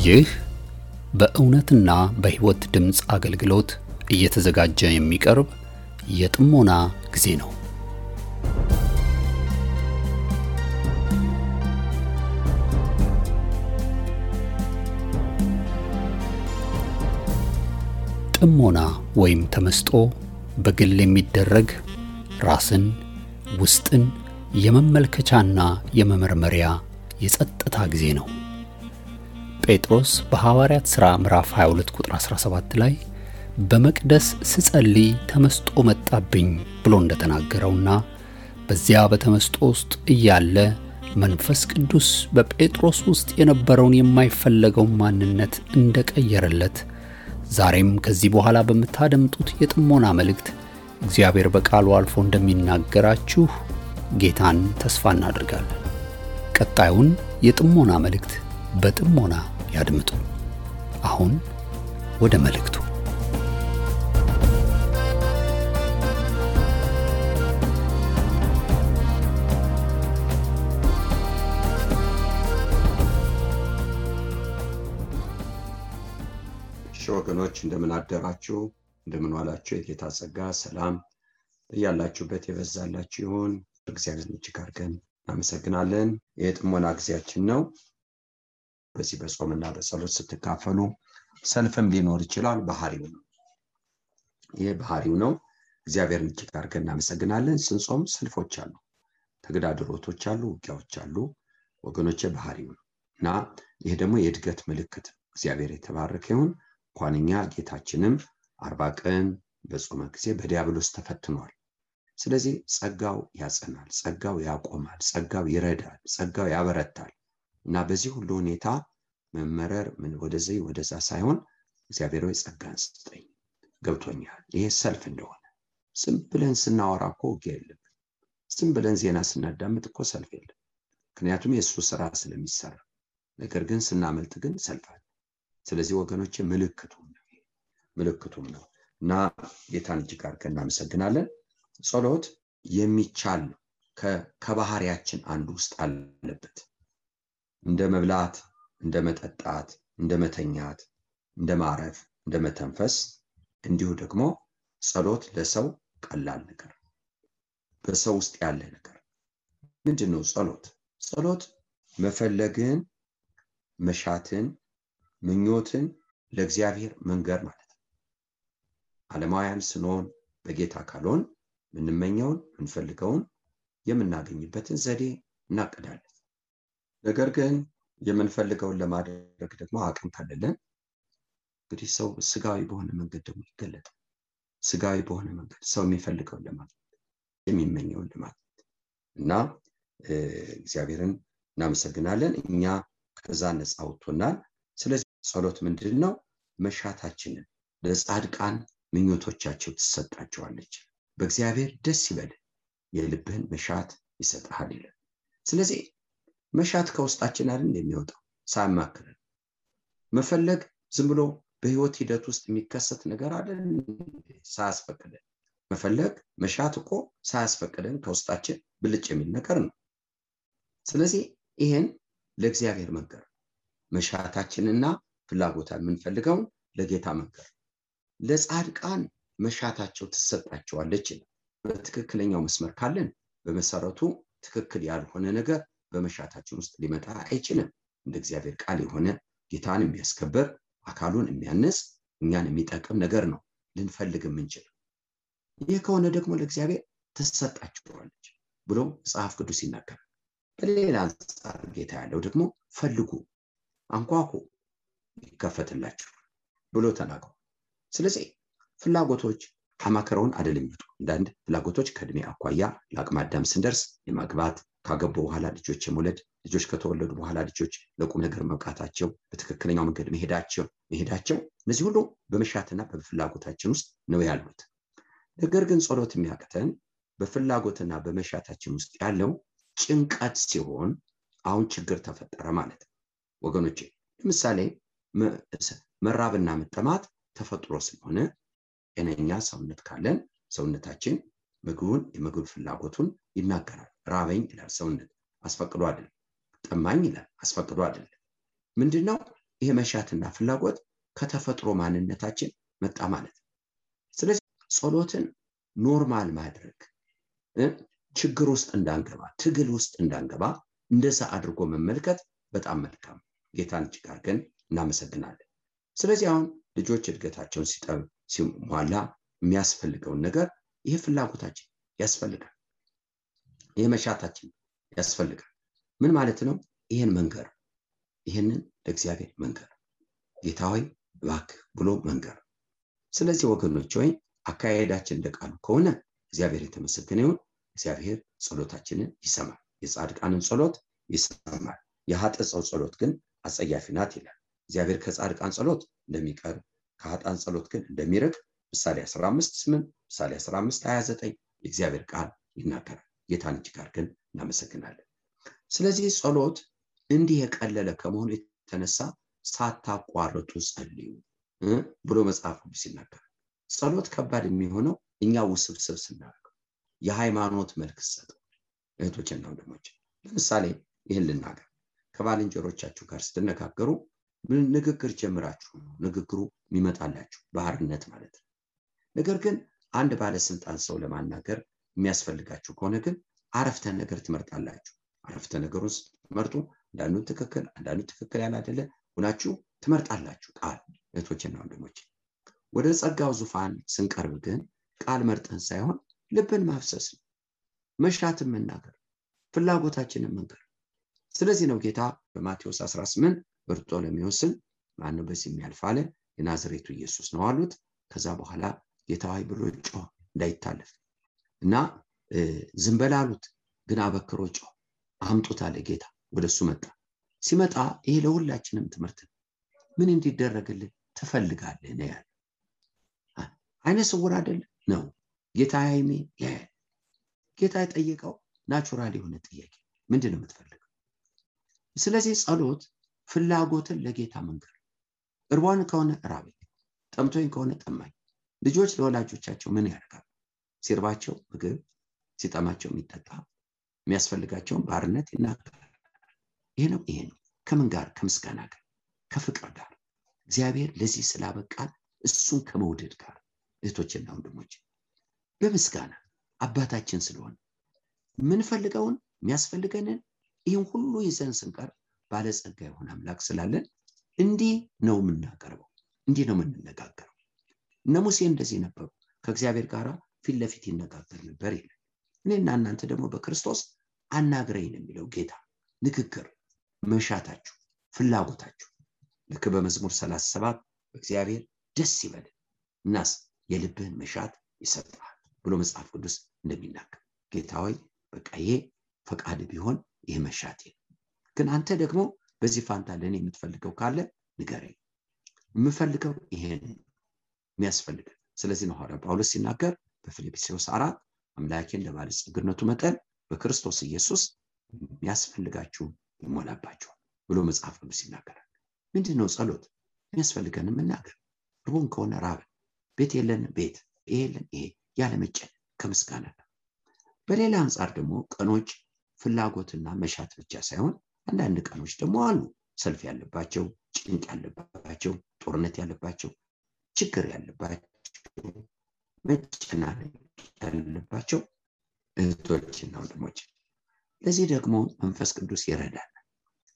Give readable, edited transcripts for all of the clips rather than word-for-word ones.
ይህ በእውነትና በሕይወት ድምጽ አገልግሎት እየተዘጋጀ የሚቀርብ የጥሞና ጊዜ ነው። ጥሞና ወይም ተመስጦ በግል የሚደረግ ራስን ውስጥን የመመልከቻና የመመርመሪያ የጸጥታ ጊዜ ነው። ጴጥሮስ በሐዋርያት ሥራ ምዕራፍ 22 ቁጥር 17 ላይ በመቅደስ ስጸልይ ተመስጦ መጣብኝ ብሎ እንደተናገረውና በዚያ በተመስጦ ውስጥ እያለ መንፈስ ቅዱስ በጴጥሮስ ውስጥ የነበረውን የማይፈለገው ማንነት እንደቀየረለት ዛሬም ከዚህ በኋላ በመታደምጡት የጥሞና መልእክት እግዚአብሔር በቃሉ አልፎ እንደሚናገራችሁ ጌታን ተስፋ እናደርጋለን። ቀጣዩን የጥሞና መልእክት በጥሞና ያድምጡ። አሁን ወደ መልእክቱ። ወገኖች እንደምን አደራችሁ፣ እንደምን ዋላችሁ። የጌታ ጸጋ ሰላም ያላችሁበት የበዛላችሁ ይሁን። እግዚአብሔር እጅግ አድርገን እናመሰግናለን። የጥሞና ጊዜያችን ነው። በዚህ በጾምና በጸሎት ስትካፈሉ ሰልፍም ሊኖር ይችላል። ባህሪው ነው። ይሄ ባህሪው ነው። እግዚአብሔርን እጅግ አድርገን እናመሰግናለን። ስንጾም ሰልፎች አሉ፣ ተግዳሮቶች አሉ፣ ውጊያዎች አሉ ወገኖቼ። ባህሪው ነው እና ይሄ ደግሞ የእድገት ምልክት። እግዚአብሔር የተባረከ ይሁን። እንኳንኛ ጌታችንም 40 ቀን በጾመ ጊዜ በዲያብሎስ ተፈትኗል። ስለዚህ ጸጋው ያጸናል፣ ጸጋው ያቆማል፣ ጸጋው ይረዳል፣ ጸጋው ያበረታል እና በዚህ ሁሉ ሁኔታ መመረር ምን ወደዚህ ወደዛ ሳይሆን እግዚአብሔር ሆይ ጸጋን ስጠኝ ገብቶኛል። ይሄ ሰልፍ እንደሆነ ዝም ብለን ስናወራ እኮ ውጊያ የለም። ዝም ብለን ዜና ስናዳምጥ እኮ ሰልፍ የለም። ምክንያቱም የእሱ ስራ ስለሚሰራ። ነገር ግን ስናመልጥ ግን ሰልፍ አለ። ስለዚህ ወገኖቼ ምልክቱም ነው እና ጌታን እጅግ አድርገን እናመሰግናለን። ጸሎት የሚቻል ነው። ከባህሪያችን አንዱ ውስጥ አለበት። እንደ መብላት፣ እንደ መጠጣት፣ እንደ መተኛት፣ እንደ ማረፍ፣ እንደ መተንፈስ እንዲሁ ደግሞ ጸሎት ለሰው ቀላል ነገር፣ በሰው ውስጥ ያለ ነገር ምንድነው? ጸሎት መፈለግን፣ መሻትን፣ ምኞትን ለእግዚአብሔር መንገር ማለት ነው። ዓለማውያን ስንሆን በጌታ ካልሆን ምንመኘውን ምንፈልገውን የምናገኝበትን ዘዴ እናቅዳለን። ነገር ግን የምንፈልገውን ለማድረግ ደግሞ አቅም ካለን እንግዲህ ሰው ስጋዊ በሆነ መንገድ ደግሞ ይገለጣል። ስጋዊ በሆነ መንገድ ሰው የሚፈልገውን ለማድረግ የሚመኘውን ለማድረግ እና እግዚአብሔርን እናመሰግናለን። እኛ ከዛ ነፃ አውጥቶናል። ስለዚህ ጸሎት ምንድነው? መሻታችንን ለጻድቃን ምኞቶቻቸው ትሰጣቸዋለች። በእግዚአብሔር ደስ ይበል የልብህን መሻት ይሰጣል ይላል። ስለዚህ መሻት ከውስጣችን አይደል እንደሚወጣው ሳያማክረን መፈለግ ዝም ብሎ በህይወት ሂደት ውስጥ የሚከሰት ነገር አይደል ሳያስፈቅደን መፈለግ መሻት እኮ ሳያስፈቅደን ከውስጣችን ብልጭ የሚል ነገር ነው። ስለዚህ ይሄን ለእግዚአብሔር መንገር መሻታችንና ፍላጎታችን የምንፈልገው ለጌታ መንገር። ለጻድቃን መሻታቸው ትሰጣቸዋለች። በትክክለኛው መስመር ካለን በመሰረቱ ትክክል ያልሆነ ነገር በመሻታችን ውስጥ ሊመጣ አይችልም። እንደ እግዚአብሔር ቃል የሆነ ጌታን የሚያስከብር አካሉን የሚያነጽ እኛን የሚጠቅም ነገር ነው ልንፈልግ የምንችል። ይህ ከሆነ ደግሞ ለእግዚአብሔር ትሰጣቸዋለች ብሎ መጽሐፍ ቅዱስ ይናገራል። በሌላ አንጻር ጌታ ያለው ደግሞ ፈልጉ፣ አንኳኩ ይከፈትላችሁ ብሎ ተናግሯል። ስለዚህ ፍላጎቶች አማከረውን አይደለም ይመጡ። አንዳንድ ፍላጎቶች ከእድሜ አኳያ ለአቅመ አዳም ስንደርስ የማግባት፣ ካገቡ በኋላ ልጆች የመውለድ፣ ልጆች ከተወለዱ በኋላ ልጆች ለቁም ነገር መብቃታቸው፣ በትክክለኛው መንገድ መሄዳቸው እነዚህ ሁሉ በመሻትና በፍላጎታችን ውስጥ ነው ያሉት። ነገር ግን ጸሎት የሚያቅተን በፍላጎትና በመሻታችን ውስጥ ያለው ጭንቀት ሲሆን አሁን ችግር ተፈጠረ ማለት ነው ወገኖቼ። ለምሳሌ መራብና መጠማት ተፈጥሮ ስለሆነ ጤነኛ ሰውነት ካለን ሰውነታችን ምግቡን የምግብ ፍላጎቱን ይናገራል። ራበኝ ይላል ሰውነት፣ አስፈቅዶ አይደለም። ጠማኝ ይላል፣ አስፈቅዶ አይደለም። ምንድነው ይሄ መሻትና ፍላጎት ከተፈጥሮ ማንነታችን መጣ ማለት ነው። ስለዚህ ጸሎትን ኖርማል ማድረግ ችግር ውስጥ እንዳንገባ ትግል ውስጥ እንዳንገባ እንደዛ አድርጎ መመልከት በጣም መልካም። ጌታን እጅግ አድርገን እናመሰግናለን። ስለዚህ አሁን ልጆች እድገታቸውን ሲሟላ የሚያስፈልገውን ነገር ይሄ ፍላጎታችን ያስፈልጋል፣ ይሄ መሻታችን ያስፈልጋል። ምን ማለት ነው? ይሄን መንገር፣ ይሄንን ለእግዚአብሔር መንገር፣ ጌታ ሆይ እባክህ ብሎ መንገር። ስለዚህ ወገኖች ሆይ አካሄዳችን እንደቃሉ ከሆነ እግዚአብሔር የተመሰገነ ይሁን። እግዚአብሔር ጸሎታችንን ይሰማል። የጻድቃንን ጸሎት ይሰማል። የኃጥእ ሰው ጸሎት ግን አጸያፊ ናት ይላል። እግዚአብሔር ከጻድቃን ጸሎት እንደሚቀርብ ከኃጥአን ጸሎት ግን እንደሚርቅ ምሳሌ 15:8 ምሳሌ 15:29 የእግዚአብሔር ቃል ይናገራል። ጌታን እጅግ አድርገን እናመሰግናለን። ስለዚህ ጸሎት እንዲህ የቀለለ ከመሆኑ የተነሳ ሳታቋርጡ ጸልዩ ብሎ መጽሐፍ ቅዱስ ይናገራል። ጸሎት ከባድ የሚሆነው እኛ ውስብስብ ስናደርገው የሃይማኖት መልክ ሰጠው። እህቶችና ወንድሞች ለምሳሌ ይህን ልናገር። ከባልንጀሮቻችሁ ጋር ስትነጋገሩ ንግግር ጀምራችሁ ንግግሩ የሚመጣላችሁ ባህርነት ማለት ነው። ነገር ግን አንድ ባለስልጣን ሰው ለማናገር የሚያስፈልጋችሁ ከሆነ ግን አረፍተ ነገር ትመርጣላችሁ። አረፍተ ነገሩን ስትመርጡ አንዳንዱ ትክክል ያላደለ ሆናችሁ ትመርጣላችሁ ቃል። እህቶችና ወንድሞች ወደ ጸጋው ዙፋን ስንቀርብ ግን ቃል መርጠን ሳይሆን ልብን ማፍሰስ ነው፣ መሻትን መናገር፣ ፍላጎታችንን መንገር። ስለዚህ ነው ጌታ በማቴዎስ 18 በርጦሎሜዎስን ማነው በዚህ የሚያልፍ አለ። የናዝሬቱ ኢየሱስ ነው አሉት። ከዛ በኋላ ጌታ ሆይ ብሎ ጮኸ እንዳይታለፍ እና ዝም በል አሉት። ግን አበክሮ ጮኸ። አምጡት አለ ጌታ። ወደሱ መጣ። ሲመጣ ይሄ ለሁላችንም ትምህርት ነው። ምን እንዲደረግልን ትፈልጋለህ ነው ያለ። አይነ ስውር አይደል ነው ጌታ ያይሜ ያያል። ጌታ የጠየቀው ናቹራል የሆነ ጥያቄ ምንድነው የምትፈልገው? ስለዚህ ጸሎት ፍላጎትን ለጌታ መንገር። እርቧን ከሆነ ራበኝ፣ ጠምቶኝ ከሆነ ጠማኝ። ልጆች ለወላጆቻቸው ምን ያደርጋሉ? ሲርባቸው ምግብ፣ ሲጠማቸው የሚጠጣ፣ የሚያስፈልጋቸውን ባርነት ይናገራል። ይሄ ነው ከምን ጋር? ከምስጋና ጋር፣ ከፍቅር ጋር፣ እግዚአብሔር ለዚህ ስላበቃን እሱን ከመውደድ ጋር። እህቶችና ወንድሞች በምስጋና አባታችን ስለሆነ ምንፈልገውን የሚያስፈልገንን ይህን ሁሉ ይዘን ስንቀር ባለጸጋ የሆነ አምላክ ስላለን እንዲህ ነው የምናቀርበው፣ እንዲህ ነው የምንነጋገረው። እነ ሙሴ እንደዚህ ነበሩ፣ ከእግዚአብሔር ጋር ፊት ለፊት ይነጋገር ነበር ይላል። እኔና እናንተ ደግሞ በክርስቶስ አናግረኝ ነው የሚለው ጌታ። ንግግር፣ መሻታችሁ፣ ፍላጎታችሁ ልክ በመዝሙር 37 እግዚአብሔር ደስ ይበል እናስ የልብህን መሻት ይሰጣል ብሎ መጽሐፍ ቅዱስ እንደሚናገር ጌታ ሆይ በቃ ይሄ ፈቃድ ቢሆን ይሄ መሻቴ ግን አንተ ደግሞ በዚህ ፋንታ ለኔ የምትፈልገው ካለ ንገረኝ። የምፈልገው ይሄን የሚያስፈልግ። ስለዚህ ነው ሐዋርያው ጳውሎስ ሲናገር በፊልጵስዩስ 4 አምላኬን ለባለጸግነቱ መጠን በክርስቶስ ኢየሱስ የሚያስፈልጋችሁ ይሞላባችሁ ብሎ መጽሐፍ ቅዱስ ይናገራል። ምንድነው ጸሎት? የሚያስፈልገን መናገር። ርቦን ከሆነ ራበን፣ ቤት የለን ቤት፣ ይሄ የለን ይሄ ያለመጨነቅ ከምስጋና ጋር። በሌላ አንጻር ደግሞ ቀኖች ፍላጎትና መሻት ብቻ ሳይሆን አንዳንድ ቀኖች ደግሞ አሉ ሰልፍ ያለባቸው፣ ጭንቅ ያለባቸው፣ ጦርነት ያለባቸው፣ ችግር ያለባቸው፣ መጨናነቅ ያለባቸው እህቶችና ወንድሞች። ለዚህ ደግሞ መንፈስ ቅዱስ ይረዳል።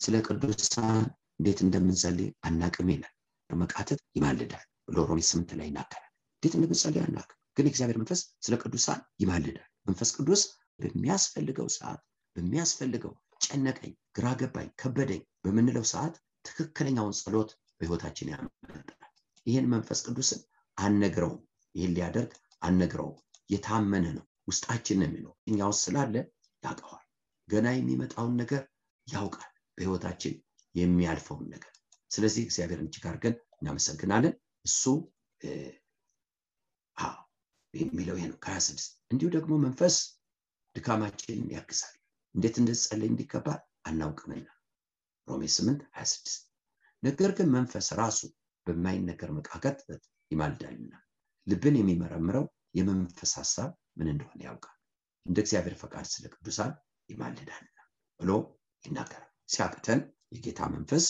ስለ ቅዱሳን እንዴት እንደምንጸልይ አናቅም ይላል። በመቃተት ይማልዳል ብሎ ሮሜ 8 ላይ ይናገራል። እንዴት እንደምንጸልይ አናቅም፣ ግን እግዚአብሔር መንፈስ ስለ ቅዱሳን ይማልዳል። መንፈስ ቅዱስ በሚያስፈልገው ሰዓት በሚያስፈልገው ጨነቀኝ፣ ግራ ገባኝ፣ ከበደኝ በምንለው ሰዓት ትክክለኛውን ጸሎት በህይወታችን ያመጣል። ይሄን መንፈስ ቅዱስን አነግረውም፣ ይሄን ሊያደርግ አነግረውም። የታመነ ነው፣ ውስጣችን ነው የሚለው። እኛው ስላለ ያውቀዋል። ገና የሚመጣውን ነገር ያውቃል፣ በህይወታችን የሚያልፈውን ነገር። ስለዚህ እግዚአብሔርን እጅግ አድርገን እናመሰግናለን። እሱ የሚለው ይሄ ነው ከ26 እንዲሁ ደግሞ መንፈስ ድካማችንን ያግዛል። እንዴት እንደጸለይ እንዲገባ አናውቅምና ሮሜ 8:26 ነገር ግን መንፈስ ራሱ በማይነገር መቃተት ይማልዳልና ልብን የሚመረምረው የመንፈስ ሐሳብ ምን እንደሆነ ያውቃል፣ እንደ እግዚአብሔር ፈቃድ ስለ ቅዱሳን ይማልዳልና ብሎ ይናገራል። ሲያቅተን የጌታ መንፈስ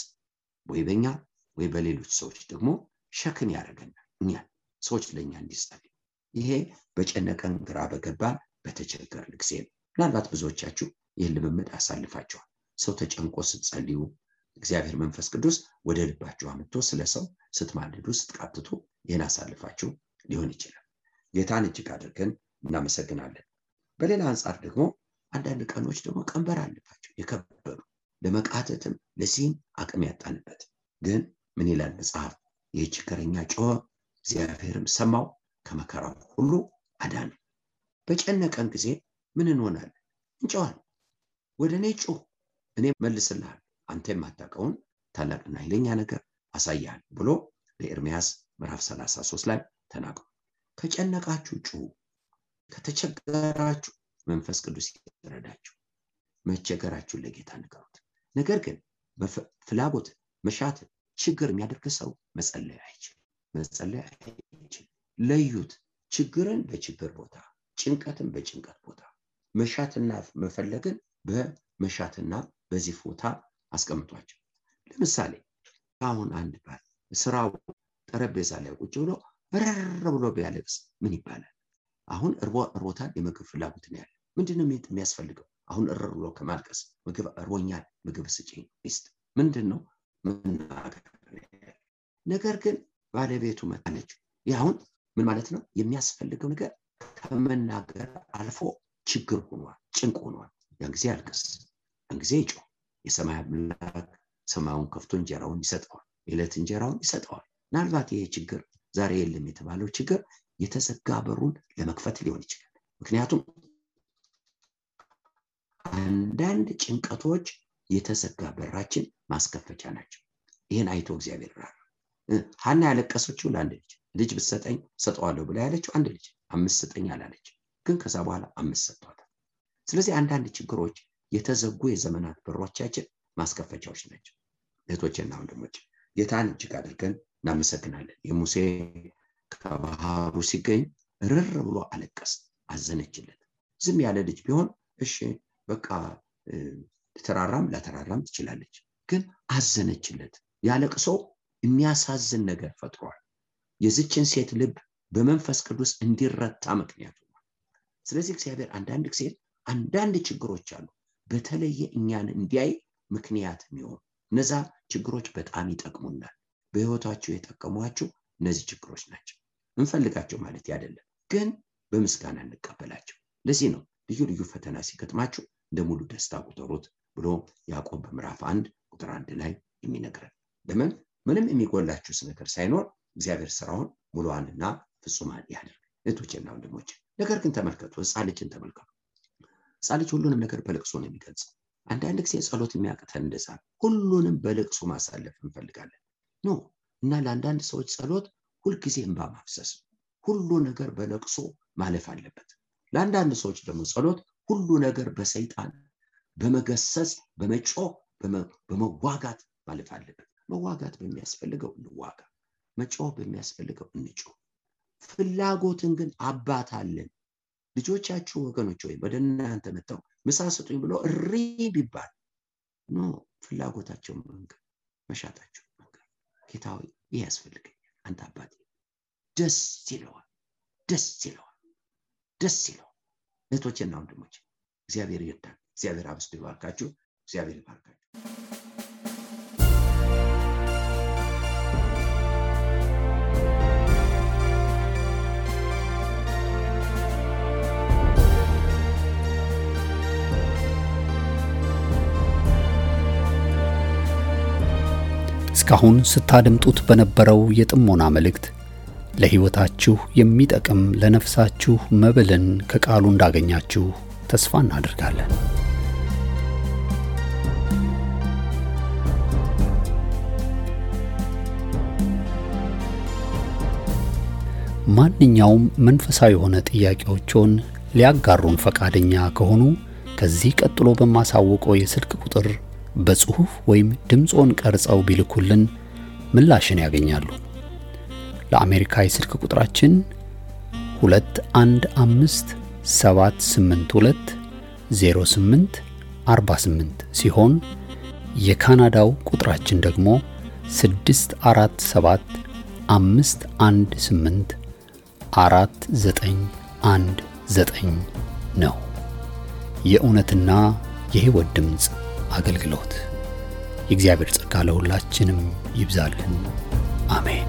ወይ በእኛ ወይ በሌሎች ሰዎች ደግሞ ሸክም ያደርገናል። እኛን ሰዎች ለኛ እንዲጸልዩ ይሄ በጨነቀን ግራ በገባን በተቸገርን ጊዜ ነው። ምናልባት ብዙዎቻችሁ ይህን ልምምድ አሳልፋችኋል። ሰው ተጨንቆ ስትጸልዩ እግዚአብሔር መንፈስ ቅዱስ ወደ ልባችሁ አምጥቶ ስለ ሰው ስትማልዱ ስትቃትቱ ይህን አሳልፋችሁ ሊሆን ይችላል። ጌታን እጅግ አድርገን እናመሰግናለን። በሌላ አንጻር ደግሞ አንዳንድ ቀኖች ደግሞ ቀንበር አለባቸው የከበዱ ለመቃተትም ለዚህም አቅም ያጣንበት። ግን ምን ይላል መጽሐፍ? ይህ ችግረኛ ጮኸ፣ እግዚአብሔርም ሰማው፣ ከመከራው ሁሉ አዳነ። በጨነቀን ጊዜ ምን እንሆናለን? እንጮኻለን። ወደ እኔ ጩህ፣ እኔ መልስልሃለሁ፣ አንተ የማታውቀውን ታላቅና ኃይለኛ ነገር አሳያለሁ ብሎ በኤርምያስ ምዕራፍ 33 ላይ ተናግሯል። ከጨነቃችሁ ጩሁ፣ ከተቸገራችሁ መንፈስ ቅዱስ ይረዳችሁ። መቸገራችሁን ለጌታ ንገሩት። ነገር ግን ፍላጎት መሻት ችግር የሚያደርግ ሰው መጸለይ አይችልም። ለዩት። ችግርን በችግር ቦታ፣ ጭንቀትን በጭንቀት ቦታ፣ መሻትና መፈለግን በመሻትና በዚህ ቦታ አስቀምጧቸው። ለምሳሌ አሁን አንድ ባል ስራው ጠረጴዛ ላይ ቁጭ ብሎ ረር ብሎ ቢያለቅስ ምን ይባላል? አሁን እርቦታል፣ የምግብ ፍላጎት ነው ያለ። ምንድነው የሚያስፈልገው? አሁን ረር ብሎ ከማልቀስ ምግብ እርቦኛል፣ ምግብ ስጪኝ ሚስት ምንድነው መናገር? ነገር ግን ባለቤቱ መጣለች። አሁን ምን ማለት ነው? የሚያስፈልገው ነገር ከመናገር አልፎ ችግር ሆኗል፣ ጭንቅ ሆኗል። ያን ጊዜ አልቅስ፣ ያን ጊዜ ይጮህ። የሰማይ አምላክ ሰማዩን ከፍቶ እንጀራውን ይሰጠዋል፣ የዕለት እንጀራውን ይሰጠዋል። ምናልባት ይሄ ችግር ዛሬ የለም የተባለው ችግር የተዘጋ በሩን ለመክፈት ሊሆን ይችላል። ምክንያቱም አንዳንድ ጭንቀቶች የተዘጋ በራችን ማስከፈቻ ናቸው። ይሄን አይቶ እግዚአብሔር ራራ። ሐና ያለቀሰችው ለአንድ ልጅ ብትሰጠኝ ሰጠዋለሁ ብላ ያለችው አንድ ልጅ 5 ስጠኝ አላለች፣ ግን ከዛ በኋላ 5 ሰጥቷታል። ስለዚህ አንዳንድ ችግሮች የተዘጉ የዘመናት በሮቻችን ማስከፈቻዎች ናቸው። እህቶቼና ወንድሞቼ ጌታን እጅግ አድርገን እናመሰግናለን። የሙሴ ከባህሩ ሲገኝ ርር ብሎ አለቀስ፣ አዘነችለት። ዝም ያለ ልጅ ቢሆን እሺ በቃ ላተራራም ትችላለች፣ ግን አዘነችለት። ያለቅሶ የሚያሳዝን ነገር ፈጥሯል። የዚችን ሴት ልብ በመንፈስ ቅዱስ እንዲረታ ምክንያት ሆኗል። ስለዚህ እግዚአብሔር አንዳንድ ችግሮች አሉ በተለየ እኛን እንዲያይ ምክንያት የሚሆኑ። እነዛ ችግሮች በጣም ይጠቅሙናል። በህይወታችሁ የጠቀሟችሁ እነዚህ ችግሮች ናቸው። እንፈልጋቸው ማለት አይደለም፣ ግን በምስጋና እንቀበላቸው። ለዚህ ነው ልዩ ልዩ ፈተና ሲገጥማችሁ እንደ ሙሉ ደስታ ቁጠሩት ብሎ ያዕቆብ በምዕራፍ 1 ቁጥር 1 ላይ የሚነግረን። ለምን? ምንም የሚጎላችሁ ነገር ሳይኖር እግዚአብሔር ስራውን ሙሉዋንና ፍጹማን ያደርግ። እህቶቼና ወንድሞቼ ነገር ግን ተመልከቱ፣ ሕፃን ልጅን ተመልከቱ። ሕፃን ልጅ ሁሉንም ነገር በልቅሶ ነው የሚገልጸው። አንዳንድ ጊዜ ጸሎት የሚያቅተን እንደዛ ሁሉንም በልቅሶ ማሳለፍ እንፈልጋለን ኖ። እና ለአንዳንድ ሰዎች ጸሎት ሁልጊዜ እንባ ማፍሰስ፣ ሁሉ ነገር በልቅሶ ማለፍ አለበት። ለአንዳንድ ሰዎች ደግሞ ጸሎት ሁሉ ነገር በሰይጣን በመገሰጽ በመጮህ በመዋጋት ማለፍ አለበት። መዋጋት በሚያስፈልገው እንዋጋ፣ መጮህ በሚያስፈልገው እንጮህ። ፍላጎትን ግን አባት አለን። ልጆቻችሁ ወገኖች ወይ ወደ እናንተ መጥተው ምሳ ስጡኝ ብሎ እሪ ቢባል ኖ፣ ፍላጎታቸው መንገር፣ መሻታቸው መንገር። ጌታ ሆይ ይህ ያስፈልገኛል፣ አንተ አባቴ። ደስ ይለዋል። እህቶቼና ወንድሞቼ እግዚአብሔር ይርዳን። እግዚአብሔር አብዝቶ ይባርካችሁ። እግዚአብሔር ይባርካችሁ። እስካሁን ስታደምጡት በነበረው የጥሞና መልእክት ለሕይወታችሁ የሚጠቅም ለነፍሳችሁ መብልን ከቃሉ እንዳገኛችሁ ተስፋ እናደርጋለን። ማንኛውም መንፈሳዊ የሆነ ጥያቄዎችን ሊያጋሩን ፈቃደኛ ከሆኑ ከዚህ ቀጥሎ በማሳወቀው የስልክ ቁጥር በጽሁፍ ወይም ድምጾን ቀርጸው ቢልኩልን ምላሽን ያገኛሉ። ለአሜሪካ የስልክ ቁጥራችን 2157820848 ሲሆን የካናዳው ቁጥራችን ደግሞ 647 518 4919 ነው። የእውነትና የሕይወት ድምጽ አገልግሎት። የእግዚአብሔር ጸጋ ለሁላችንም ይብዛልን። አሜን።